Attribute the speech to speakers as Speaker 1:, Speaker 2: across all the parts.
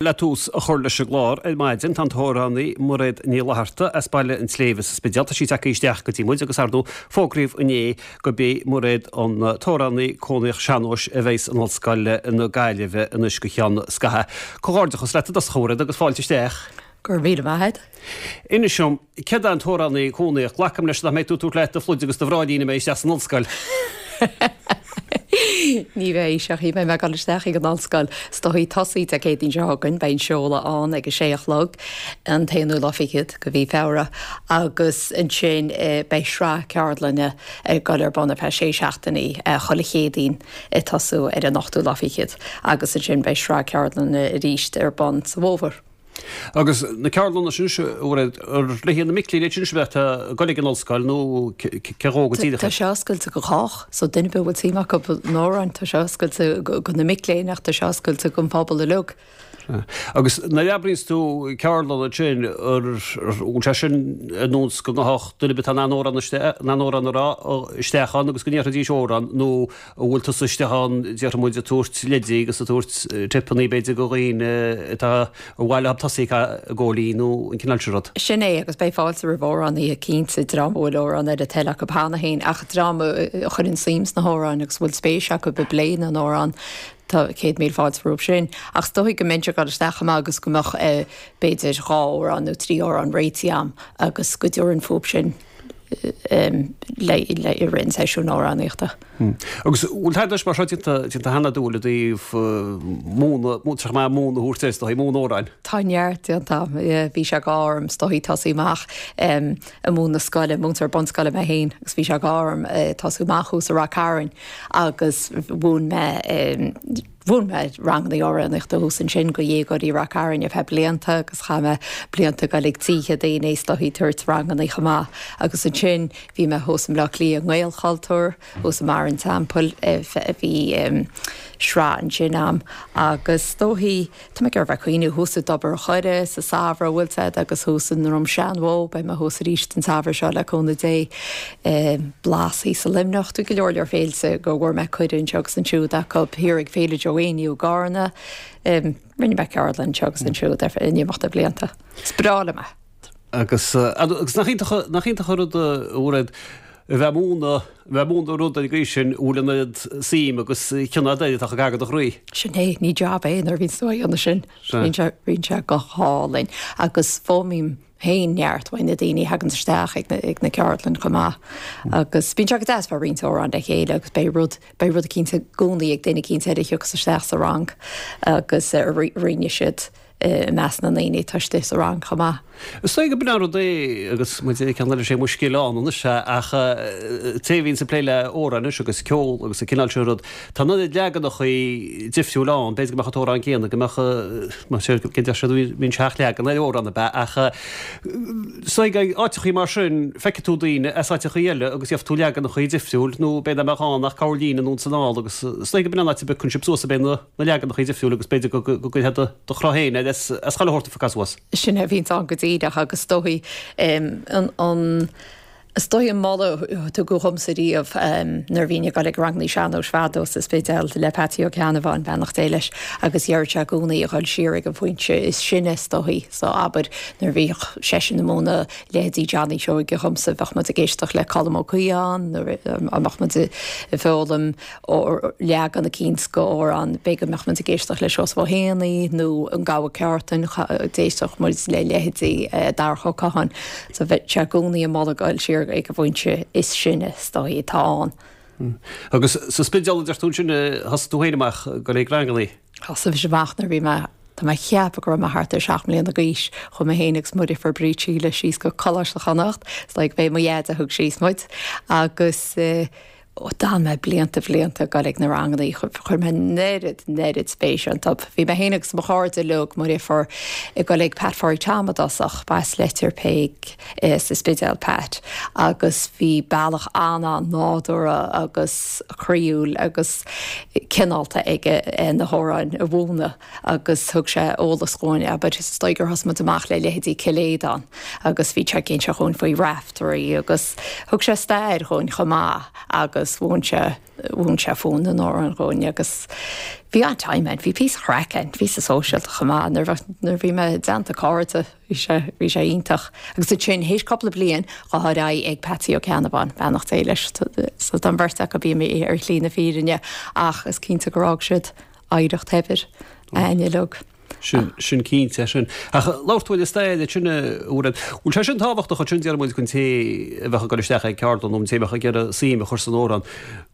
Speaker 1: Le tús a chur leis an gclár ar maidin tá an t-amhránaí Mairéad Ní Fhlatharta as Baile an tSléibhe sa Spidéal. Tá sí tagtha isteach go dtí muid agus ar ndóigh fógraíodh inné gurb í Mairéad an t-amhránaí cónaíoch sean-nóis a bheidh in Ollscoil na Gaillimhe anois go cheann scaithimh. Comhghairdeachas leat i dtosach a Mhairéad agus fáilte isteach.
Speaker 2: Go raibh míle maith agat.
Speaker 1: Inis dom, céard é an t-amhránaí cónaíoch? Glacaim leis nach mbeidh tú ag tabhairt leat do phluid agus do bhráillín a mbeidh isteach san ollscoil.
Speaker 2: Ní bheidh, seachas beidh mé ag dul isteach ag an ollscoil is dóichí tosaí Dé Céadaoin seo chugainn, beidh an seoladh ann ag a sé a chlog, an t-aonú lá fichead de mhí Feabhra, agus ansin beidh sraith ceardlainne ag dul ar bun ar feadh sé seachtainí chuile Chéadaoin ag tosú ar an ochtú lá fichead, agus ansin beidh sraith ceardlainne arís ar bun sa bhfómhar.
Speaker 1: Agus na ceardlanna sin, a Mhairéad, ar le haghaidh na mic léinn iad sin a bheadh ag dul ag an ollscoil nó cé dhó go díreach?
Speaker 2: Tá sé oscailte go chách, so duine ar bith a bhfuil suim acu in amhráin, tá sé oscailte go na mic léinn ach tá sé oscailte don phobal uilig.
Speaker 1: Agus nuair a oibríonns tú ceardlann ansin, ar bhfuil sé sin ar nós go ngabhfadh duine ar bith atá in ann amhrán in ann amhrán a rá isteach ann agus go ndéarfaidís amhrán nó An bhfuil tusa istigh ann, déarfaidh muid, ag tabhairt leidí agus ag tabhairt tipeanna, b'fhéidir, do dhaoine atá ar mhaith leo tosaí ag góilín nó an cineál sin rud?
Speaker 2: Sin é, agus beidh fáilte roimh amhránaithe cinnte, dream a bhfuil amhrán ar a dtoil acu cheana féin, ach dream a chuireann suim sna hamhráin agus a bhfuil spéis acu i bplé na n-amhrán, tá 100,000 fáilte rompu sin. Ach is dóigh go mbeinnse ag dul isteach chomh maith agus go mbeadh b'fhéidir dhá amhrán nó trí amhrán réitithe a'm agus go dtabharfainn fúthu sin. le i rith an seisiúin amhránaíochta.
Speaker 1: Agus bhfuil tada mar seo déanta déanta cheana agat i dtaobh múineadh, múinteoir maith múineadh a thabhairt air, is dóigh, múineadh amhráin?
Speaker 2: Tá neart déanta agam. Bhí sé go orm is dóigh tosaí amach ag múineadh scoile, múinteoir bunscoile mé féin agus bhí sé go orm tosú amach thuas i Rath Cairn agus mhúin mé Mhúin mé ranganna amhránaíochta thuas ansin go dhéagóirí Rath Cairn ar feadh blianta agus chaith mé blianta ag dul ag tithe daoine is dóichí ag tabhairt ranganna chomh maith. Agus ansin bhí mé thuas i mBleá Cliath i nGaelchultúr, thuas i mBarr an Teampaill, bhí sraith ansin a'm agus is dóichí, Tá mé ag iarraidh bheith ag cuimhniú thuas i dTobar an Choire sa samhradh, bhfuil 's a'd, agus thuas i nDroim Seanbhó, beidh mé thuas arís an samhradh seo le cúnamh Dé. Blas thíos i Luimneach, tá go leor leor féilte go bhfuair mé cuireadh anseo agus ansiúd acu, thiar ag Féile Joe Éinniú i gCarna. Rinne mé ceardlann anseo agus ansiúd ar feadh in imeacht na blianta. Is breá liom é.
Speaker 1: Agus agus nach iontach nach iontach an rud a Mhairéad a bheith ag múineadh a bheith ag múineadh rud ar an gcaoi sin a bhfuil an oiread suim agus cion agat air atá gar do chroí.
Speaker 2: Sin é, ní jab é nuair a bhíonns tú á dhéanamh sin. Bíonn sé bíonn sé go hálainn agus foghlaimím féin neart uaidh na daoine a thaganns isteach ag na ag na ceardlann chomh maith. Agus bíonn sé go deas bheith ag roinnt amhrán le chéile agus beidh rud beidh rud eicínt i gcónaí ag duine eicínt eile a thiocfas isteach sa rang agus a roinnfidh siad i measc na ndaoine atá istigh sa rang chomh maith.
Speaker 1: Is dóigh gurb in an rud é agus muid ag ceann eile sé mo scéal anois ach té a bhíonns ag plé le amhráin anois agus ceol agus an cineál sin rud, tá an oiread leaganachaí difriúil ann, b'fhéidir go mbeadh an t-amhrán céanna, go mbeadh, mar sin, go deir siad bíonn seacht leagan ar amhrán ab ea ach is dóigh ag áiteachaí mar sin feicfidh tú daoine as áiteachaí eile agus gheobhaidh tú leaganachaí difriúil nó b'fhéidir nach mbeadh ann ach corrlíne anonn is anall agus is dóigh gurb in an áit a bpiocann sibh suas ab é na na leaganachaí difriúla agus b'fhéidir go gcuirfeá do chruth féin air as chuile shórt a phiocadh suas.
Speaker 2: Sin é a bhíonns ann go díreach agus is dóichí an is dóichí an moladh a tugadh dhomsa riamh nuair a bhínn ag dul ag rangannaí sean-nóis fadó sa Spidéal le Peatsaí Ó Ceannabháin, beannacht Dé leis, agus dheireadh sé i gcónaí a dhul siar ag an phointe is sine is dóichí. So abair nuair a bhíodh seisean ag múineadh leithéidí Johnny Seoige dhomsa bheadh muid ag éisteacht le Colm Ó Caodháin nuair a mbeadh muid ag foghlaim leagan eicínt de amhrán, b'fhéidir go mbeadh muid ag éisteacht le Seosamh Ó hÉanaí nó An Gabha Ceártan, d'éisteadh muid le leithéidí Darach Ó Catháin. So bheadh sé i gcónaí ag moladh goil siar ag an bhfoinse is sine is dóichí atá ann.
Speaker 1: Agus sa Spidéal a deir tú ansin a thosaigh tú féin amach ag goil ag rangannaí?
Speaker 2: Thosaigh mise amach nuair a bhí mé, tá mé ag ceapadh go raibh mé thart ar sheacht mbliana d'aois, chuaigh mé féin agus mo dheirfiúr Bríd Síle síos go Coláiste Chonnacht, is dóigh go b'é mo dhaid a thug síos muid, agus Ó d'fhan mé blianta bhlianta ag dul ag na rangannaí, chuir mé an oiread, an oiread spéise iontu. Bhí mé féin agus mo chairde uilig, mo dheirfiúr, ag dul ag Pat Phádraig Tom i dtosach, b'as Leitir Péic sa Spidéal Pat, agus bhí bealach an-an-nádúrtha agus croíúil agus cineálta aige na hamhráin a mhúineadh. agus thug sé eolas dhúinn, abair, is dóigh gur thosaigh muid amach le leithéidí Cill Aodáin agus bhí sé ag inse dhúinn faoi Raiftearaí agus thug sé stair dhúinn chomh maith agus. agus mhúin sé, mhúin sé fonn na n-amhrán dhúinn agus bhí an-time ann, bhí píosa craic ann, píosa sóisialta chomh maith nuair a bheadh, nuair a bhí mé i dteannta cairde, bhí sé, bhí sé iontach. Agus ansin, théis cúpla bliain, ghabh ar aghaidh ag Patsy Ó Ceannabháin, beannacht Dé leis, so tá an bheirt acu imithe ar shlí na fírinne ach is cinnte gur fhág siad oidhreacht shaibhir againn uilig.
Speaker 1: Sin, sin cinnte, sin. Ach labhair tú ar an stair ansin, a Mhairéad. Bhfuil sé sin tábhachtach ansin, déarfaidh muid, don té a bheadh ag dul isteach ag ceardlann nó an té a bheadh ag iarraidh suim a chur san amhrán,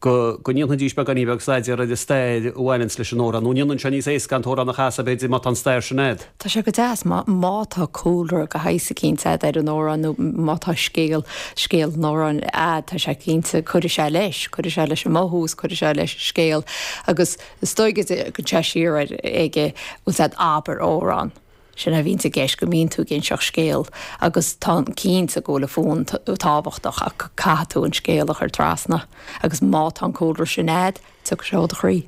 Speaker 1: go, go ndéanfaidís beagáinín beag staidéar ar an stair a bhaineanns leis an amhrán, nó an ndéanann sé níos éasca an t-amhrán a chasadh, b'fhéidir, má tá an stair sin a'd?
Speaker 2: Tá sé go deas má, má tá cúlra de shaghas eicínt a'd ar an amhrán nó má tá scéal, scéal an amhráin a'd, tá sé cinnte, cuirfidh sé leis, cuirfidh sé leis an mothú is cuirfidh sé leis an scéal agus, Is dóigh go dtéann sé siar ar ag a bhfuil 's a'd abair amhrán. Sin é a bhíonns i gceist, go mbíonn tú ag inseacht scéal agus tá cinnte go bhfuil an fonn tábhachtach ach caithfidh tú an scéal a chur trasna agus má tá an cúlra sin a'd, tiocfaidh sé ó do chroí.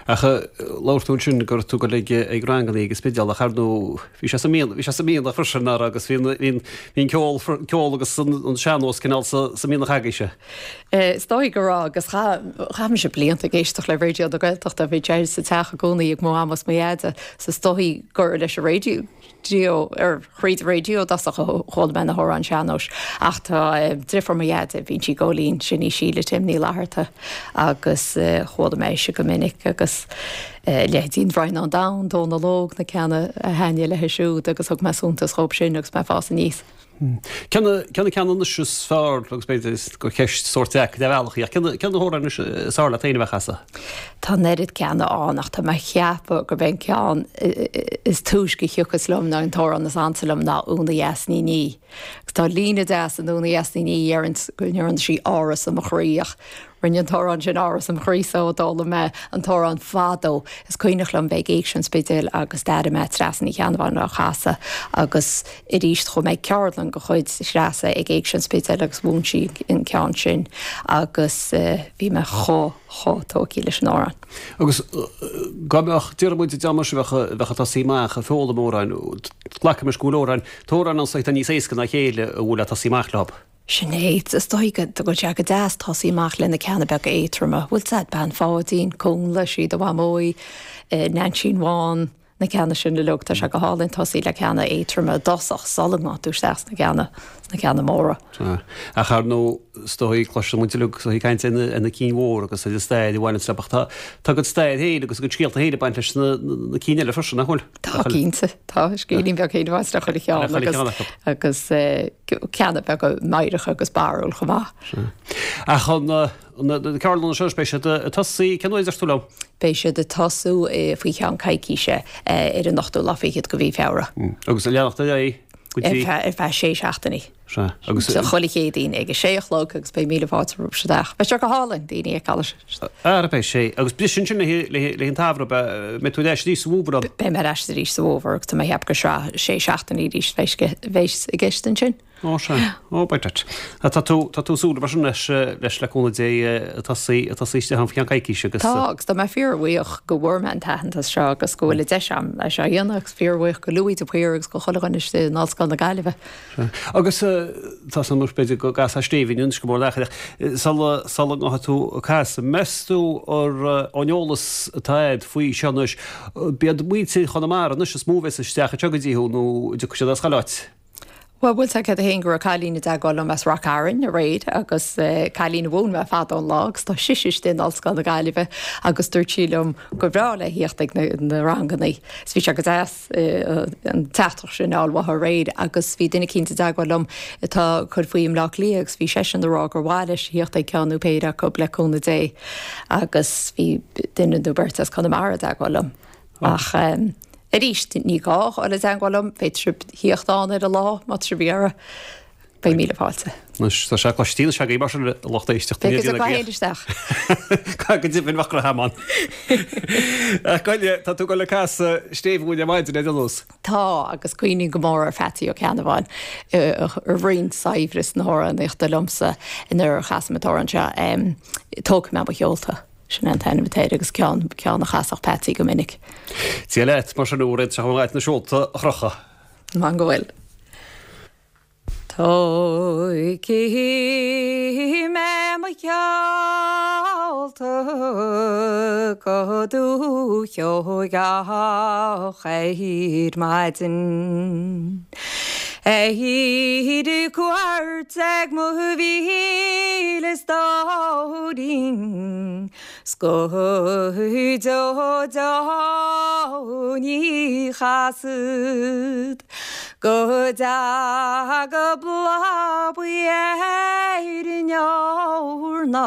Speaker 1: Ach labhair tú ansin go raibh tú ag dul ag ranganna ag an Spidéal ach ar ndóigh bhí sé sa mianach, bhí sé sa mianach freisin nach raibh agus bhí an, bhí an ceol, ceol agus an sean-nós cineál sa, sa mianach agaibhse.
Speaker 2: Is dóigh go raibh agus chaith mise blianta ag éisteacht le Raidió na Gaeltachta, bhí sé sa teach i gcónaí ag mo mham is mo dheaide, so is dóigh gur leis an raidió, ar thríd an raidió i dtosach a chuala mé na hamhráin sean-nóis. Ach tá driofúr mo dheaide, bíonn sí ag gabháil fhoinn, sin í Síle Tim Ní Fhlatharta agus chuala mé ise go minic agus leithéidí An Draighneán Donn, Dónal Óg, na ceanna a thaitnigh léi siúd agus thug mé suntas dhóibh sin agus mé ag fás aníos.
Speaker 1: Cé na ceanna anois is fearr, agus b'fhéidir gur ceist sórt deacair ar bhealach í, ach cé na hamhráin anois is fearr leat féin a bheith a chasadh?
Speaker 2: Tá an oiread ceanna ann ach tá mé a cheapadh gurb é an ceann is túisce a thiocfas liom nó an t-amhrán is ansa liom ná Úna Dheas Ní Ní. Agus tá líne deas in Úna Dheas Ní Ní a deireanns go ndearna sí áras i mo chroí ach Rinne an t-amhrán sin áras im chroí-sa ó d'fhoghlaim mé an t-amhrán fadó. Is cuimhneach liom bheith ag Éigse an Spidéil agus d'airigh mé Treasa Ní Cheannabháin á chasadh agus arís chuaigh mé ag ceardlann de chuid Threasa ag Éigse an Spidéil agus mhúin sí an ceann sin agus bhí mé chomh, chomh tógtha leis an amhrán.
Speaker 1: Agus dá mbeadh, déarfaidh muid, dá mbeadh, bheadh, bheadh ag tosaí amach ag foghlaim amhráin, glacaimis go bhfuil amhráin, tá amhráin ann atá níos éasca ná a chéile a bhfuil le tosaí amach leo.
Speaker 2: Sin é. Is dóigh go bhfuil sé go deas tosaí amach le na ceanna beaga éadtroma. Bhfuil 's a'd, Bean Pháidín, Cúnla, Sí do Mhamó í, Neainsín Bhán, na ceanna sin uilig. Tá sé go hálainn tosaí le ceanna éadtroma i dtosach sula ngabhann tú isteach sna ceanna, sna ceanna móra.
Speaker 1: Sea. Ach ar ndóigh, is dóigh, cloiseann muid uilig is dóigh caint ar na cinn mhóra agus ar an stair a bhaineanns leo ach tá, tá a gcuid stair féin agus a gcuid scéalta féin ag baint leis na, na cinn eile freisin, nach bhfuil?
Speaker 2: Tá, cinnte. Tá scéilín beag féin ag baint le chuile cheann agus, agus ceanna beaga meidhreacha agus barrúil chomh maith.
Speaker 1: Sea. Ach an, na ceardlanna seo, beidh siad ag tosaí, cén uair a deir tú liom?
Speaker 2: Beidh siad ag tosú faoi cheann coicíse ar an ochtú lá fichead de mhí Feabhra.
Speaker 1: Agus ag leanacht ar aghaidh
Speaker 2: go dtí? Ar feadh sé seachtainí.
Speaker 1: Sea. Agus.
Speaker 2: So chuile Chéadaoin ag a sé a chlog agus beidh míle fáilte romhaibh isteach. Beidh sé go hálainn, daoine a fheiceáil.
Speaker 1: Ara beidh sé. Agus briseann sin le le an tsamhradh, beidh tú ar ais arís sa bhfómhar
Speaker 2: an? Beidh mé ar ais arís sa bhfómhar agus tá mé ag ceapadh gur sraith sé seachtainí arís a bheas i gceist ansin.
Speaker 1: Ó sea. Ó beidh duit. Tá tú tá tú ag súil mar sin leis leis le cúnamh Dé ag tosaí ag tosaí isteach ann faoi cheann coicíse agus.
Speaker 2: Tá agus tá mé fíorbhuíoch go bhfuair mé an t-aitheantas seo agus go bhfuil an deis agam é seo a dhéanamh agus fíorbhuíoch go Louis de Paor agus go chuile dhuine istigh in Ollscoil na Gaillimhe.
Speaker 1: Agus tá san b'fhéidir go gcasfá stéibhín anois go mór leat ach sula sula ngabhfaidh tú ag casadh, meas tú ar ón eolas atá agat faoi seo anois, b'iad muintir Chonamara anois is mó a bheas isteach anseo go dtí thú nó an dtiocfaidh siad as chuile áit?
Speaker 2: Bhuel, bhfuil 's agat féin go raibh cailín i dteagmháil liom as Ráth Cairn aréir agus cailín a mhúin mé fadó an lá agus tá sise istigh in Ollscoil na Gaillimhe agus dúirt sí liom gur bhreá léi theacht ag na rangannaí. So bhí sé go deas. an teachtaireacht sin a fháil uaithi aréir agus bhí duine eicínt i dteagmháil liom atá ag cur faoi i mBleá Cliath agus bhí seisean ag rá gur mhaith leis a theacht ag ceann nó péire acu le cúnamh Dé agus bhí duine nó beirt as Conamara i dteagmháil liom. Ach arís ní gá a dhul i dteagmháil liom, féadfaidh sibh theacht ann ar an lá má tá sibh ag iarraidh. Beidh míle fáilte.
Speaker 1: Anois, tá sé cloiste anois agaibh mar sin a lucht éisteachta.
Speaker 2: Beidh fhios agaibh isteach.
Speaker 1: Go deimhin bheadh go ham ann. Ach Goile, tá tú ag dul ag casadh stéibh dhúinn ar maidin ar aon nós.
Speaker 2: Tá, agus cuimhním go mór ar Pheatsaí Ó Ceannabháin a roinn saibhreas na hamhránaíochta liomsa nuair a chasaim an t-amhrán seo, Tógfaidh mé mo sheolta. Sin é an t-ainm atá air agus ceann, ceann a chasfadh Peatsaí go minic.
Speaker 1: Dia leat, mar sin, a Mhairéad, seo chugat na seolta a chrochadh.
Speaker 2: Man go bhfuil. Tógfaidh mé mo sheolta go Dúiche Sheoigeach ar maidin. Ar cuairt ag mo mhíle stóirín 's go deo deo ní chasfad go dtaga bláth buí ar an eorna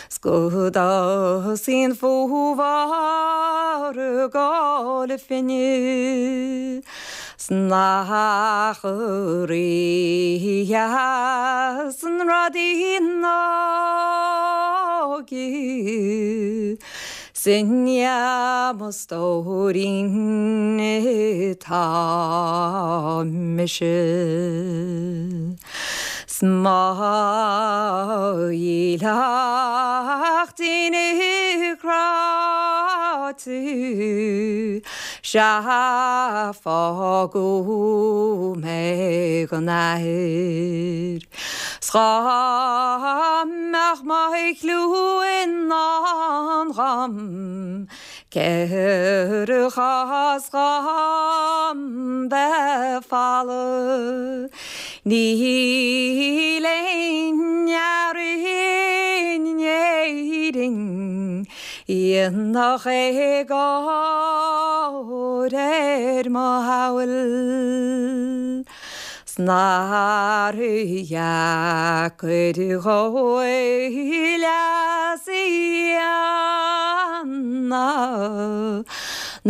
Speaker 2: 's go dtosaí an fómhar ag ól a phingine 's nach rígheas an rud í an óige 's i ndiaidh mo stóirín atá mise. 'S mo dhílleachtín cráite Sea, fágadh mé gan athair 's dhá mbeadh mo chliú i ndán dhom cér chás dhom bheith folamh Níl aon fhear in Éirinn Dhéanfadh éagóir ar mo shamhail 's nár dheacair dhó leas a dhéanamh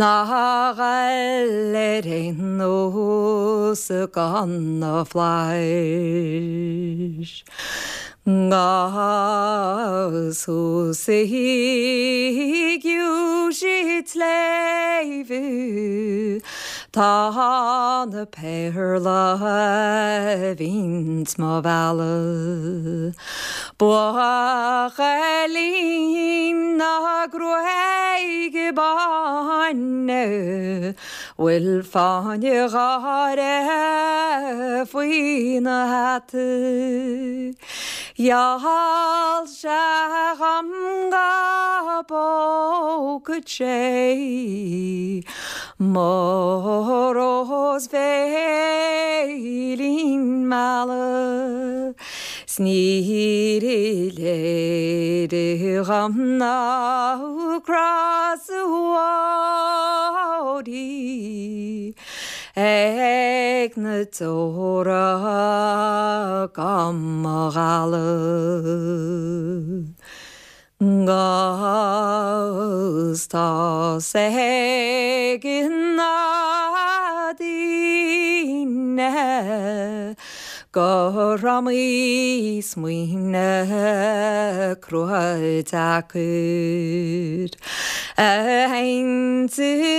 Speaker 2: ná a dhul ar aon nós gan na flaithis. 'Gus thuas i gciumhais an tsléibhe tá na péarla a bhíonns mo mhealladh. Buachaillín na gruaige báine bhfuil fáinne gáire faoina hata. Gheall sé dhom go bpógfadh sé mo rós bhéilín meala. 'S níor léir dhom ná crois ag na deora go mo dhalladh. 'Gus tá's ag na daoine gur iomaí smaoineamh crua deacair a théann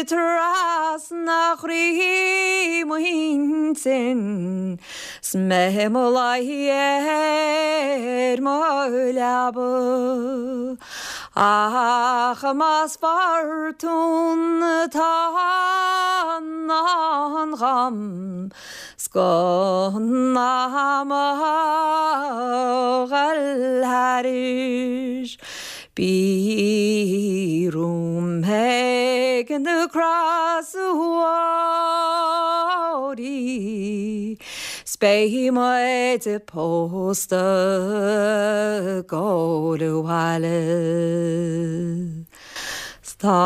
Speaker 2: trasna chroí m'intinn 's mé i mo luí ar mo leaba. Ach más fortún atá i ndán dhom 's gan am a dhul thairis bí romham ag na crosuóirí 's beidh muid pósta gabháil abhaile. 'S tá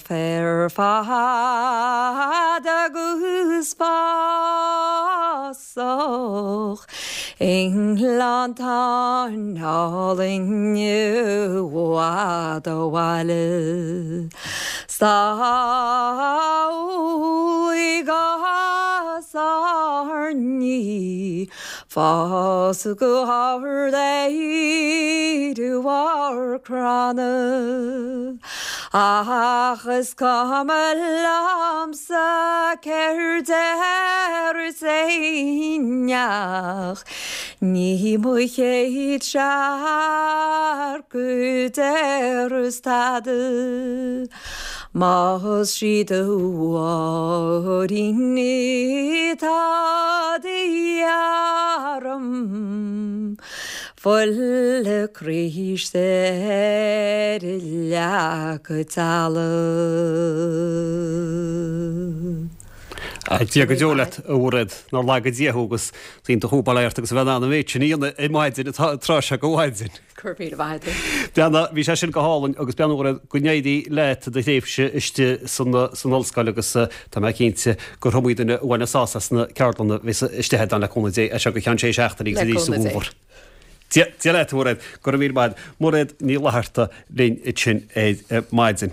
Speaker 2: féar fada 'gus fásach i ngleanntáin álainn i bhfad ó bhaile. 'S tá úllaí 'gus airní Fás go hard ar bharr cranna Ach is cuma liomsa céard déarfas éinneach Ní mo chéad searc a déarfas tada. Más sí do Mháirín atá de dhíth orm, Fuil Chríost ar a leac talamh.
Speaker 1: Dia go deo leat, a Mhairéad, nár laga Dia thú agus is iontach thú bail ort agus a bheith in ann an mhéid sin a dhéanamh ar maidin, an tráth seo de mhaidin.
Speaker 2: Go raibh míle maith
Speaker 1: agat. Beanna, bhí sé sin go hálainn agus beanna Mhairéad, go n-éirí leat i do thréimhse istigh san ollscoil agus tá mé cinnte gur iomaí duine a bhainfeas sásamh as na ceardlanna a bheas istigh agat le cúnamh Dé as seo go ceann sé seachtainí agus arís sa bhfómhar. Dia leat, a Mhairéad. Go raibh míle maith agat. Mairéad Ní Fhlatharta linn ansin ar maidin.